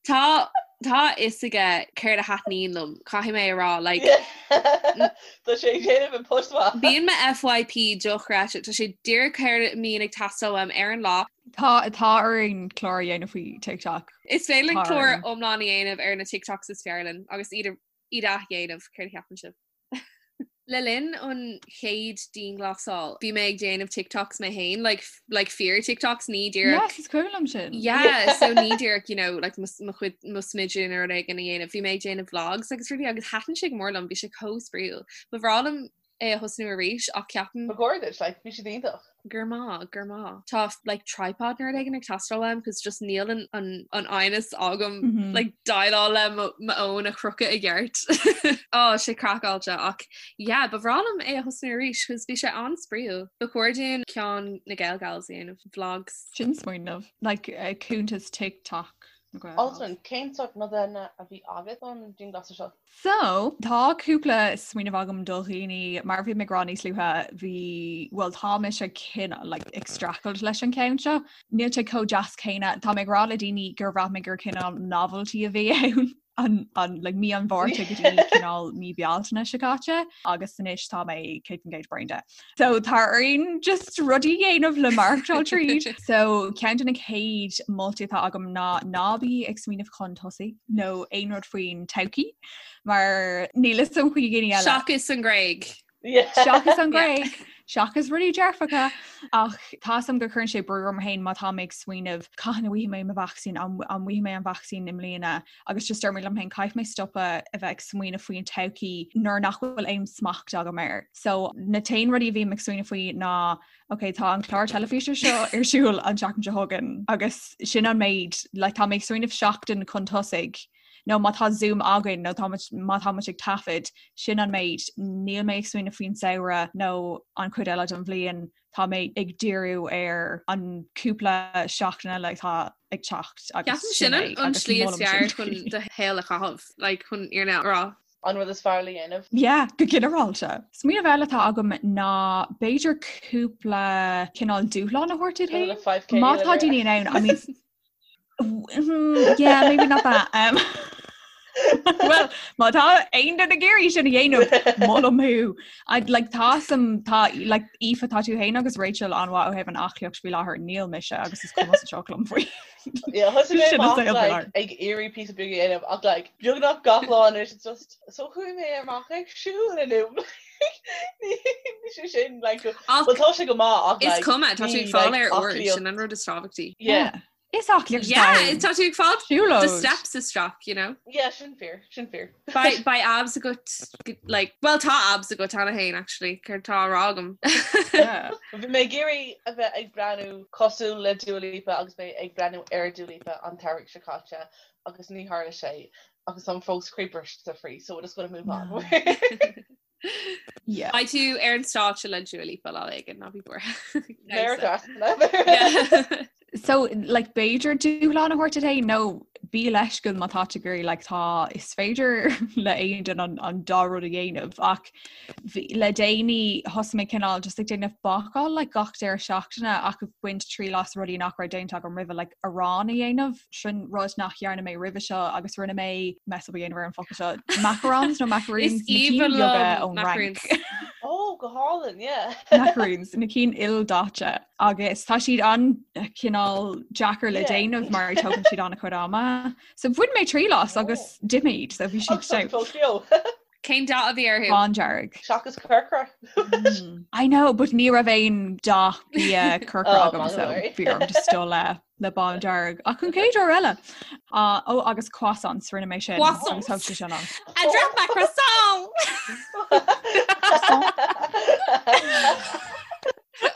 B: Tá tá a fhios aige céard a thaitníonn liom, caithfidh mé a rá, like.
D: Tá sé ag déanamh an post
B: maith. Bíonn mo FYP dochreidte, tá sé díreach céard a mbíonn ag teastáil uaim ar an lá.
C: Tá tá orainn clár a dhéanamh faoi TikTok.
B: Is féidir linn clár iomlán a dhéanamh ar na TikToks is fearr linn agus iad iad a dhéanamh, céard a cheapann sibh? Le linn an chéad dianghlasáil, bhí mé ag déanamh TikToks mé féin, like, like fíor TikToks, ní
C: díreach. Yes, is cuimhin liom sin.
B: Yeah, so ní díreach, you know, like mo chuid mo smideadh nó rud éigin a dhéanamh. Bhí mé ag déanamh vlogs agus rudaí agus thaitin sé go mór liom, bhí sé chomh spraíúil. Ba bhreá liom é a thosnú arís ach
D: ceapaim. Ba chóir duit, like, bhí siad iontach.
B: Grma, grma. Tá like tripod nó rud éigin ag teastáil uaim cos just níl an an an fhoighneas agam mm -hmm. like déileáil le mo fhón a chrochadh i gceart. Á sé craiceáilte ach yeah, ba bhreá liom é a thosnú arís cos bhí sé an-spraíúil. Ba chóir dúinn ceann na Gael Gals a dhéanamh vlogs.
C: Sin smaoineamh like uh, cuntas TikTok.
D: Alswyn, cén sórt nodanna a bhí agat don dianghlasáil seo?
C: So, tá cúpla smaoineamh agam do dhaoine, mar a bhí mé ag rá níos luaithe, bhí, bhuel tá mise cineál like ag streachailt leis an ceann seo. Níl sé chomh deas céanna. Tá mé ag rá le daoine gur bhraith mé gur cineál novelty a bhí ann an, an, like, mí an Mhárta go dtí cineál mí Bealtaine seo caite agus anois tá mé 100% bréan de. So tá orainn just rudaí a dhéanamh le maireachtáil tríd. So ceann de na chéad moltaí atá agam ná ná bí ag smaoineamh chun tosaigh nó aon rud faoin todhchaí mar níl fhios agam faoi dhaoine
B: eile. Seachas an Ghréig.
C: Seachas an Ghréig, seachas rudaí dearfacha ach tá fhios agam go cuireann sé brú orm féin má tá mé ag smaoineamh cathain a bhfaighidh mé mo vacsaín an bhfaighidh mé an vacsaín i mbliana agus just deir mé liom féin caithfidh mé stopadh a bheith ag smaoineamh faoin todhchaí nuair nach bhfuil aon smacht agam air. So na t-aon rudaí a bhím ag smaoineamh faoi ná ok tá an clár teilifíse seo ar siúl an tseachtain seo chugainn agus sin an méid like, tá mé ag smaoineamh seachtain chun tosaigh nó má tá Zoom againn nó tá má tá muid ag taifead sin an méid níl mé ag smaoineamh faoin samhradh nó an chuid eile den bhliain tá mé ag díriú ar an cúpla seachtain eile atá ag teacht
B: agus Ceapaim sin an slí is fearr chun do shaol a chaitheamh, like chun an fhírinne a rá.
D: An rud is fearr le dhéanamh.
C: Yeah, go ginearálta. Smaoineamh eile atá agam ná b'fhéidir cúpla cineál dúshlán a thabhairt duit féin. Má tá daoine in ann, I mean, Yeah, maybe not that. Um, well, má tá aon duine ag iarraidh sin a dhéanamh molaim thú. I'd like tá some tá like Aoife tá tú féin agus Rachel an-mhaith ó thaobh an aclaíocht faoi láthair níl mise agus is cuma sa tsioc liom faoi.
D: Yeah, thosaigh mé Sin an amach saol faoi like, láthair. ag iarraidh píosa beag a dhéanamh ach like, beagnach gach lá anois it's just so chuaigh mé amach ag siúl inniu. Ní sé sin like
B: Ach
D: well tá sé go maith ach
B: is
D: like
B: cuma, tá tú
D: ní
B: ag fáil
D: like
B: aer úr,
D: aclaíocht.
B: sin an rud is tábhachtaí.
D: Yeah.
C: Yeah. Is aclaíocht
B: Yeah,
C: é.
B: tá tú ag fáil do
C: Siúlóid.
B: steps isteach, you know.
D: Yeah, sin fíor, sin fíor.
B: Beidh beidh abs agat like well tá abs agat cheana féin actually, céard tá á rá agam.
C: Yeah.
D: Bhí mé ag iarraidh a bheith ag breathnú cosúil le Dua Lipa agus mé ag breathnú ar Dua Lipa an t-earrach seo caite agus ní tharla sé agus táim fós croíbhriste faoi so we're just gonna move on.
C: No. Yeah.
B: Beidh tú ar an stáitse le Dua Lipa lá éigin ná bí buartha.
D: Méara
B: Yeah.
C: So like b'fhéidir dúshlán a thabhairt duit féin nó bí leisciúil má tá tú ag iarraidh like tá is féidir le aon duine an, an dá rud a dhéanamh ach bhí, le déanaí thosaigh mé cineál just ag déanamh bácáil like gach deireadh seachtaine ach ag baint triail as rudaí nach raibh déanta agam roimhe like arán a dhéanamh sin rud nach dhearna mé roimhe seo agus rinne mé mess up a dhéanamh ar an focal seo macarons nó macaroons
B: Is
C: na cinn
B: aoibhinn
C: beaga
B: liom
C: ón Fhrainc.
B: macaroons.
D: Oh, go hálainn, yeah.
C: Macaroons na cinn ildaite agus tá siad an-chineál deacair le
D: Yeah.
C: déanamh mar tógann siad an-chuid ama. So bhain mé triail as agus d'ith mé iad so bhí siad
D: Agus tá
C: stout.
D: fós beo.
B: Cén dath a bhí orthu?
C: Bándearg.
D: Seachas corcra.
C: I know, but ní raibh aon dath bia corcra
D: Oh,
C: agam
D: man,
C: so
D: sorry.
C: bhí orm just dul le le bándearg. Ach an chéad uair eile. Uh, ó agus croissants rinne mé sin.
B: Croissants.
C: Agus thóg sé sin an.
B: I dropped my croissant!
C: Croissant.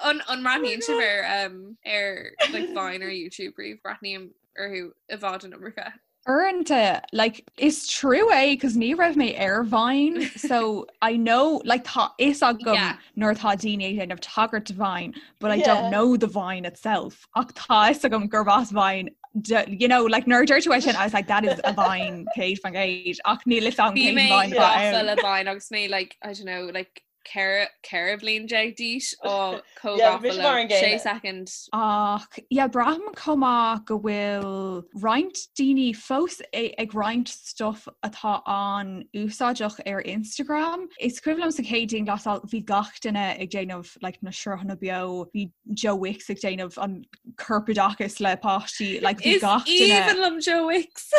B: An an mbreathnaíonn sibh ar um, ar like Vine ar YouTube riamh breathnaím orthu i bhfad an iomarca.
C: Uaireanta, like, is trua é cos ní raibh mé ar Vine, so I know, like, tá fhios agam yeah. nuair atá daoine ag déanamh tagairt do Vine, but I yeah. don't know the Vine itself. Ach tá fhios agam gurb as Vine you know, like nuair a dúirt tú é sin, I was like, that is a Vine 100% ach níl fhios agam cén
B: Vine atá ann. le Vine agus mé like, I don't know, like 14 bhliain d'aois á chomh gafa sé
C: second. Ach yeah, braithim chomh maith go bhfuil roinnt daoine fós ag roinnt stuff atá an-úsáideach ar Instagram. Is cuimhin liom sa chéad dianghlasáil bhí gach duine ag déanamh like, na sruthanna beo, bhí Joe Wicks ag déanamh an corpoideachas le páistí like, bhí
B: gach duine. Is aoibhinn liom Joe Wicks!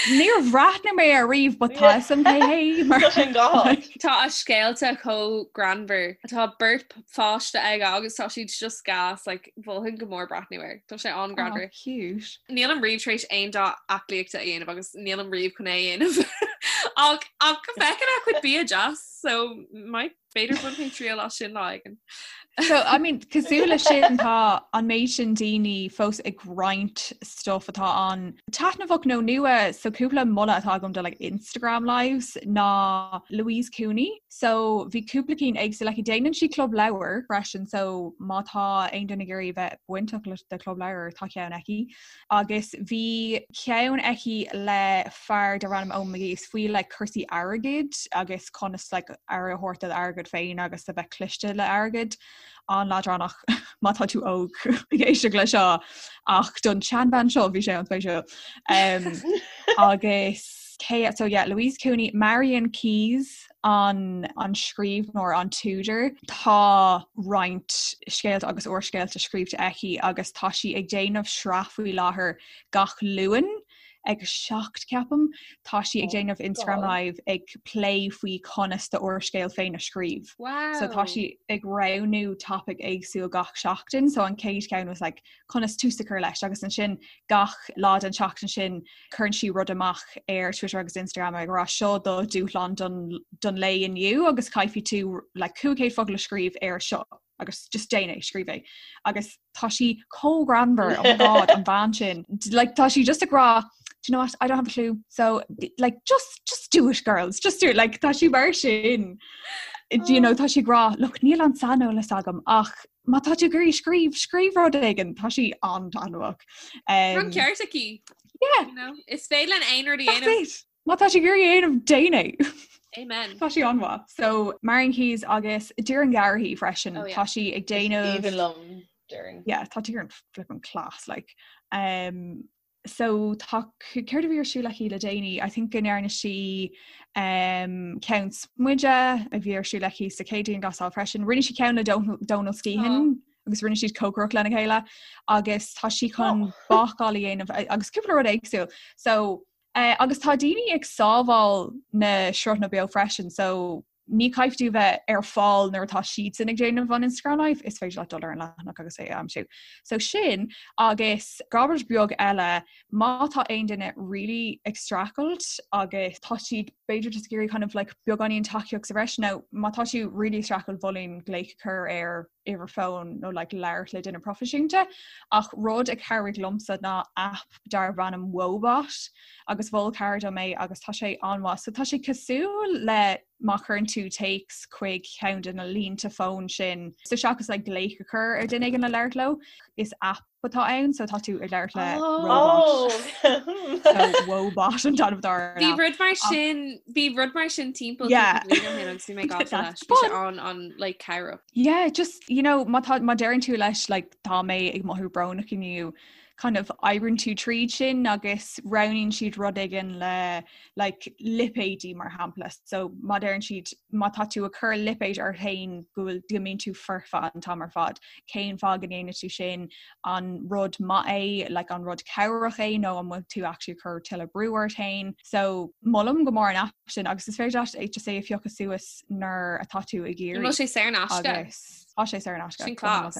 C: Níor bhreathnaigh mé air riamh but tá fhios agam cé hé
D: mar Tá sin go
B: hard. Tá a scéalta chomh greannmhar. Tá beirt pháiste aige agus tá siad just gas, like, mholfainn go mór breathnú air. Tá sé an-ghreannmhar.
C: Oh, cute.
B: Nílim riamh tar éis aon dá aclaíochta a dhéanamh agus nílim riamh chun é a dhéanamh. Ach ach feiceann a chuid bia deas, so might B'fhéidir bainfidh mé triail as sin lá éigin.
C: So, I mean, cosúil le sin tá an méid sin daoine fós ag roinnt stuff atá an-taitneamhach nó nua, so cúpla moladh atá agam do like Instagram lives ná Louise Cooney. So bhí cúpla cinn éagsúil aici. Déanann sí club leabhar freisin, so má tá aon duine ag iarraidh bheith bainteach le de club leabhar tá ceann aici. Agus bhí ceann aici le fear darb ainm Eoin McGee is faoi like cúrsaí airgid agus conas like aire a thabhairt do d'airgead féin agus a bheith cliste le airgead. An-leadránach má tá tú óg ag éisteacht le seo ach don tseanbhean seo bhí sé an-spéisiúil. Um, agus cé so yeah, Louise Cooney, Marian Keyes an an scríbhneoir an t-údar. Tá roinnt scéalta agus úrscéalta scríobhta aici agus tá sí ag déanamh sraith faoi láthair gach Luan ag 7 ceapaim. Tá sí ag déanamh Instagram Live ag plé faoi conas do úrscéal féin a scríobh.
B: Wow.
C: So tá sí ag roghnú topic éagsúil gach seachtain, so an chéad cheann was like conas tús a chur leis agus ansin gach lá den tseachtain sin cuireann sí rud amach ar Twitter agus Instagram ag rá seo do dúshlán don, don lae inniu agus caithfidh tú like, 500 focal a scríobh ar seo agus just déan é scríobh é agus tá sí chomh greannmhar oh my God an bhean sin like tá sí just ag rá do you know what I don't have a clue so like just just do it girls just do it like tá sí mar sin do you know tá sí ag rá look níl an saineolas agam ach má tá tú ag iarraidh scríobh scríobh rud éigin tá sí an-taitneamhach.
B: Um, An ceart aici.
C: Yeah. You know,
B: is féidir linn aon rud a dhéanamh.
C: Má tá tú ag iarraidh é a dhéanamh déan é.
B: Amen.
C: Tá sí an-mhaith. So Marian Keyes agus Doireann Garrihy freisin oh, yeah. tá sí ag déanamh
D: Aoibhinn liom Doireann.
C: Yeah, tá Doireann flippin class like. Um, so tá céard a bhí ar siúl aici le déanaí I think go ndearna sí um, ceann smididh a bhí ar siúl aici sa chéad dianghlasáil freisin. Rinne sí ceann le Donal Skehan oh. agus rinne siad cócaireacht lena chéile agus tá sí chun oh. bácáil a dhéanamh agus cúpla rud éagsúil. So uh, agus tá daoine ag sábháil na sruthanna beo freisin, so ní chaithfidh tú bheith ar fáil nuair atá siadsan ag déanamh an Instagram Live, is féidir leat dul ar an leathanach agus é a aimsiú. So sin agus rud beag eile má tá aon duine really ag streachailt agus tá siad b'fhéidir just ag iarraidh kind of like beagáinín tacaíocht sa bhreis nó má tá tú really ag streachailt mholfainn glaoch a chur ar uimhir fóin nó like labhairt le duine proifisiúnta ach rud a chabhraigh liomsa ná app darb ainm Woebot agus mhol cara dom é agus tá sé an-mhaith. So tá sé cosúil le má chuireann tú téacs chuig ceann de na línte fóin sin. So seachas like glaoch a chur ar duine éigin le labhairt leo, is app atá ann so tá tú ag labhairt le
D: robot.
C: So Woebot an t-ainm atá ar an
B: Bhí
C: app.
B: rud mar sin bhí rud mar sin timpeall
C: Yeah.
B: cúpla bliain ó shin agus bhí mé gafa leis. Bhí sé an an like cabhrach.
C: Yeah, just you know má tá má deireann tú leis like tá mé ag mothú brónach inniu kind of oibríonn tú tríd sin agus roghnaíonn siad rud éigin le like lipéidí mar shampla. So má deireann siad má tá tú ag cur lipéid ort féin go bhfuil go mbíonn tú foirfe an t-am ar fad. Cén fáth go ndéanann tú sin an rud maith é like an rud cabhrach é nó an bhfuil tú actually ag cur tuilleadh brú ort féin. So molaim go mór an app sin agus is féidir leat é just é a phiocadh suas nuair atá tú ag
B: iarraidh. An bhfuil sé saor in aisce?
C: Agus tá sé saor in aisce.
B: Sin class.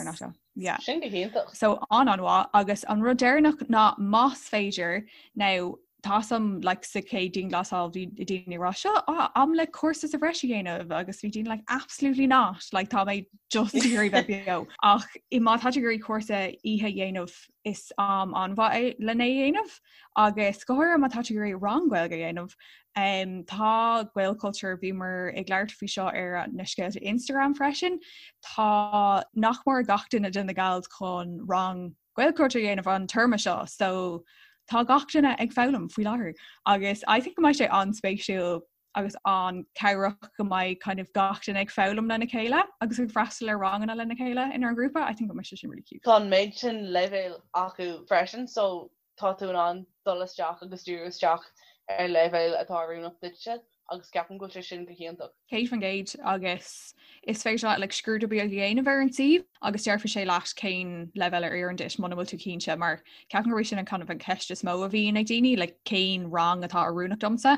C: Yeah.
D: Sin go hiontach.
C: So an-an-mhaith agus an rud deireanach ná más féidir now. Tá 's agam like sa chéad dianghlasáil bhí daoine ag rá seo ah, am le cúrsa sa bhreis a dhéanamh agus bhí daoine like absolutely not like tá mé just ag iarraidh bheith beo. Ach i má tá tú ag iarraidh cúrsa oíche a dhéanamh is am an-mhaith é lena dhéanamh agus go háirithe má tá tú ag iarraidh rang Gaeilge a dhéanamh um, tá Gaelchultúr bhíomar ag labhairt faoi seo ar na scéalta Instagram freisin tá nach mór gach duine de na gals chun rang Gaelchultúr a dhéanamh an téarma seo so tá gach duine ag foghlaim faoi láthair agus I think go mbeidh sé an-spéisiúil agus an-chabhrach go mbeidh kind of gach duine ag foghlaim lena chéile agus ag freastal ar ranganna lena chéile inár ngrúpa, I think go mbeidh sé sin really cute.
D: Tá an méid sin leibhéal acu freisin so tá tú in ann dul isteach agus díriú isteach ar leibhéal atá oiriúnach duitse agus ceapaim go bhfuil sé sin go hiontach.
C: 100% agus is féidir leat like, scrúdú beag a dhéanamh ar an suíomh agus déarfaidh sé leat cén leibhéal a oireann duit muna bhfuil tú cinnte mar ceapaim gurb é sin an kind of an ceist is mó a bhíonn ag daoine like, cén rang atá oiriúnach domsa.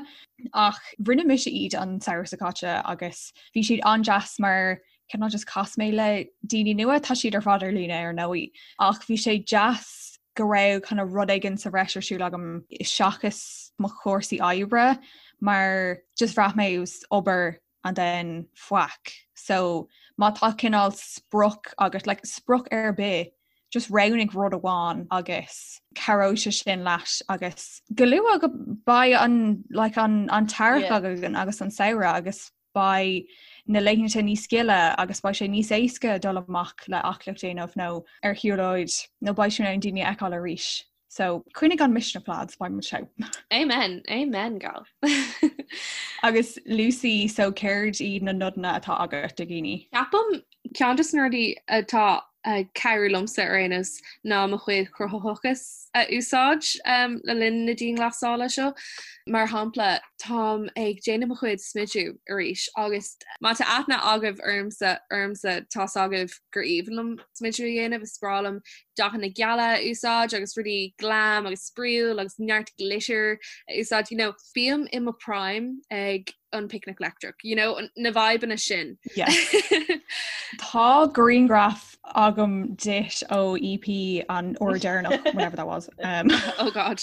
C: Ach rinne mise iad an samhradh seo caite agus bhí siad an-deas mar cineál just chas mé le daoine nua, tá siad ar fad ar líne ar ndóigh, ach bhí sé deas go raibh kind of rud éigin sa bhreis ar siúl agam seachas mo chúrsaí oibre mar just bhraith mé it was obair and then faic. So má tá cineál sprioc agat like sprioc ar bith just roghnaigh rud amháin agus cabhróidh sé sin leat agus go luath go beidh an like an an t-earrach againn agus an samhradh agus beidh na laethanta níos gile agus beidh sé níos éasca dul amach le aclaíocht a dhéanamh nó ar shiúlóid nó beidh tú in ann daoine a fheiceáil arís. So coinnigh an misneach lads, beidh muid
B: togha. Amen, amen gal.
C: Agus Lucy, so céard iad na nodanna atá agat do dhaoine?
B: Ceapaim Ceann de na rudaí atá ag cabhrú liomsa ar aon nós ná mo chuid cruthaitheachas a úsáid le linn na dianghlasála seo. Mar shampla, táim ag déanamh mo chuid smidiú arís agus má tá aithne agaibh ormsa ormsa tá's agaibh gur aoibhinn liom smidiú a dhéanamh, is breá liom dathanna geala a úsáid agus rudaí glam agus spraíúil agus neart glitter a úsáid. You know, bím i mo prime ag an Picnic Leictreach, you know, na vibeanna sin.
C: Yes. Tá grianghraf agam duit ó EP an uair deireanach, whenever that was.
B: Um, oh God.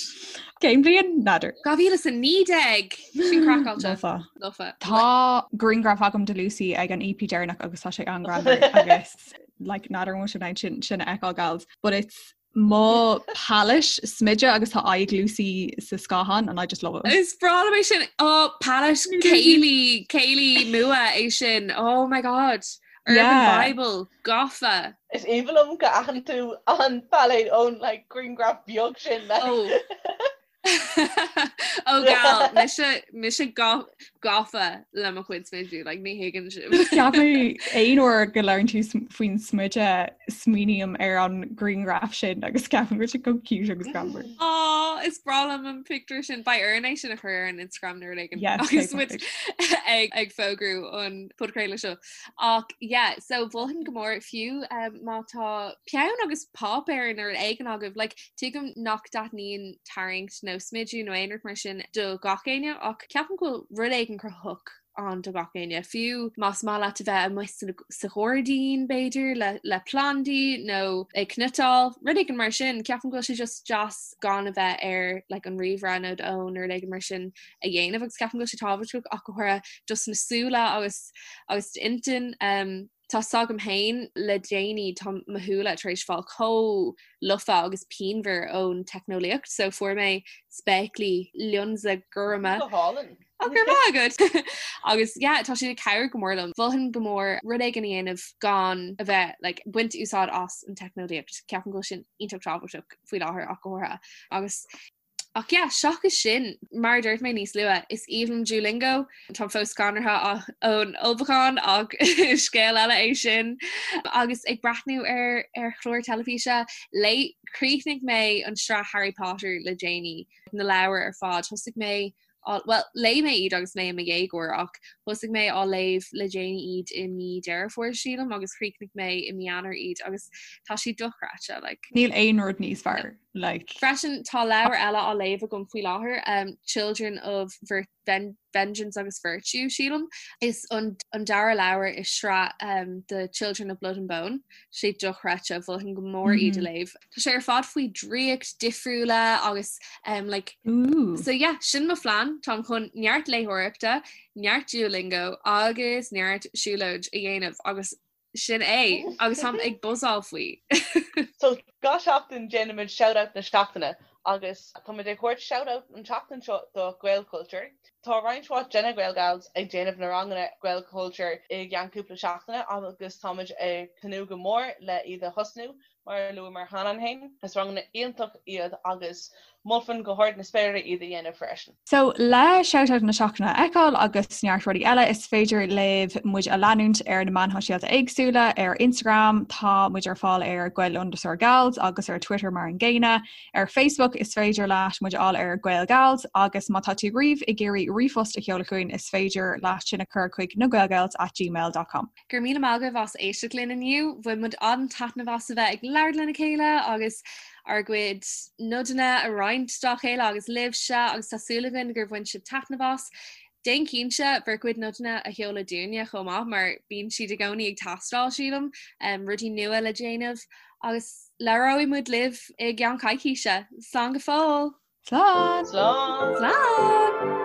C: Cén bhliain? N'fheadar.
B: 2019 sin craiceáilte.
C: Lofa. Lofa. Tá grianghraf agam de Lucy ag an EP deireanach agus tá sé an-ghreannmhar agus like n'fheadar an bhfuil sibh in ann sin sin a fheiceáil gals, but it's mo palette smididh agus tá aghaidh Lucy sa scáthán and I just love it.
B: Is breá liom é sin oh palette Kaylee Kaylee Mua é sin oh my god Urban yeah. Bible gafa.
D: Is aoibhinn liom go aithin tú an palette ón like grianghraf beag sin like.
B: Oh. Ó gal mise mise gafa le mo chuid smidiú like ní thuigeann
C: sibh. Ceapaim aon uair go labhrann tú faoin smideadh smaoiním ar an grianghraf sin agus ceapaim go bhfuil sé chomh cute agus greannmhar.
B: Á is breá liom an pictiúr sin beidh orainn é sin a chur ar an Instagram nuair éigin agus muid ag ag fógrú an podchraoladh seo. Ach yeah so mholfainn go mór fiú um, má tá peann agus páipéar nó rud éigin agaibh like tuigim nach dtaitníonn tarraingt nó smidiú nó aon rud mar sin do gach éinne ach ceapaim go bhfuil rud éigin cruthaitheach ann do gach éinne. Fiú más maith leat a bheith amuigh sa ghairdín b'fhéidir le le plandaí nó ag cniotáil, rud éigin mar sin, ceapaim go bhfuil sé just deas gan a bheith ar like an ríomhaire nó d'fhón nó rud éigin mar sin a dhéanamh agus ceapaim go bhfuil sé tábhachtach ach go háirithe dos na súile agus agus d'intinn. Um, tá 's agam féin le déanaí tá mo shúile tar éis fáil chomh lofa agus pianmhar ón teicneolaíocht so fuair mé spéaclaí lionsa gorma.
D: Go hálainn.
B: Ó go raibh maith agat! Agus yeah tá siad ag cabhrú go mór liom. Mholfainn go mór rud éigin a dhéanamh gan a bheith like baint úsáid as an teicneolaíocht. Ceapaim go bhfuil sin iontach tábhachtach faoi láthair ach go háirithe. Agus Ach yeah, seachas sin, mar a dúirt mé níos luaithe, is aoibhinn liom Duolingo. Táim fós scanraithe ón ullmhúchán ach scéal eile é sin. Agus ag breathnú ar ar chlár teilifíse, léigh, chríochnaigh mé an sraith Harry Potter le déanaí, na leabhair ar fad. Thosaigh mé, bhuel, léigh mé iad agus mé i mo dhéagóir ach. Thosaigh mé á léamh le déanaí iad i mí Deireadh Fómhair sílim agus chríochnaigh mé i mí Eanáir iad agus tá siad dochreidte like.
C: Níl aon rud níos fearr like.
B: Freisin tá leabhar eile á léamh agam faoi láthair um, Children of Vir Ven Vengeance agus Virtue sílim. Is an, an dara leabhar i sraith um, The Children of Blood and Bone. Sé dochreidte mholfainn go mór iad a mhm. léamh. Tá sé ar fad faoi draíocht difriúla agus um, like,
C: Ooh.
B: so yeah, sin mo phlean Táim chun neart léitheoireachta, neart Duolingo agus neart siúlóid a dhéanamh agus sin é agus táim ag buzzáil faoi.
D: So gach seachtain déanaimid shout-out na seachtaine agus táimid ag thabhairt shout-out an tseachtain seo do Gaelchultúr. Tá roinnt mhaith de na Gaelgals ag déanamh na ranganna Gaelchultúr i gceann cúpla seachtaine agus táimid ag tnúth go mór le iad a thosnú Mar a luamar cheana féin, is ranganna iontach iad agus mholfainn go hard na spéire iad a dhéanamh freisin.
C: So, le Shout-Out na Seachtaine a fheiceáil agus neart rudaí eile, is féidir libh muid a leanúint ar na meáin shóisialta éagsúla. Ar Instagram, tá muid ar fáil ar Gael underscore Gals agus ar Twitter mar an gcéanna. Ar Facebook, is féidir leat muid a fháil ar Gael Gals agus má tá tú riamh ag iarraidh ríomhphost a sheoladh chugainn, is féidir leat sin a chur chuig nagaelgals at gmail dot com.
B: Go raibh míle maith agaibh as éisteacht linn inniu. Bhain muid an-taitneamh as a bheith ag labhairt lena chéile agus ár gcuid nodanna a roinnt dá chéile agus libhse agus tá súil againn gur bhain sibh taitneamh as. Déan cinnte bhur gcuid nodanna a sheoladh dúinne chomh maith mar bíonn siad i gcónaí ag teastáil sílim, rudaí nua le déanamh agus labhróidh muid libh i gceann coicíse. Slán go fóill!
C: Slán!
D: Slán!
B: Slán!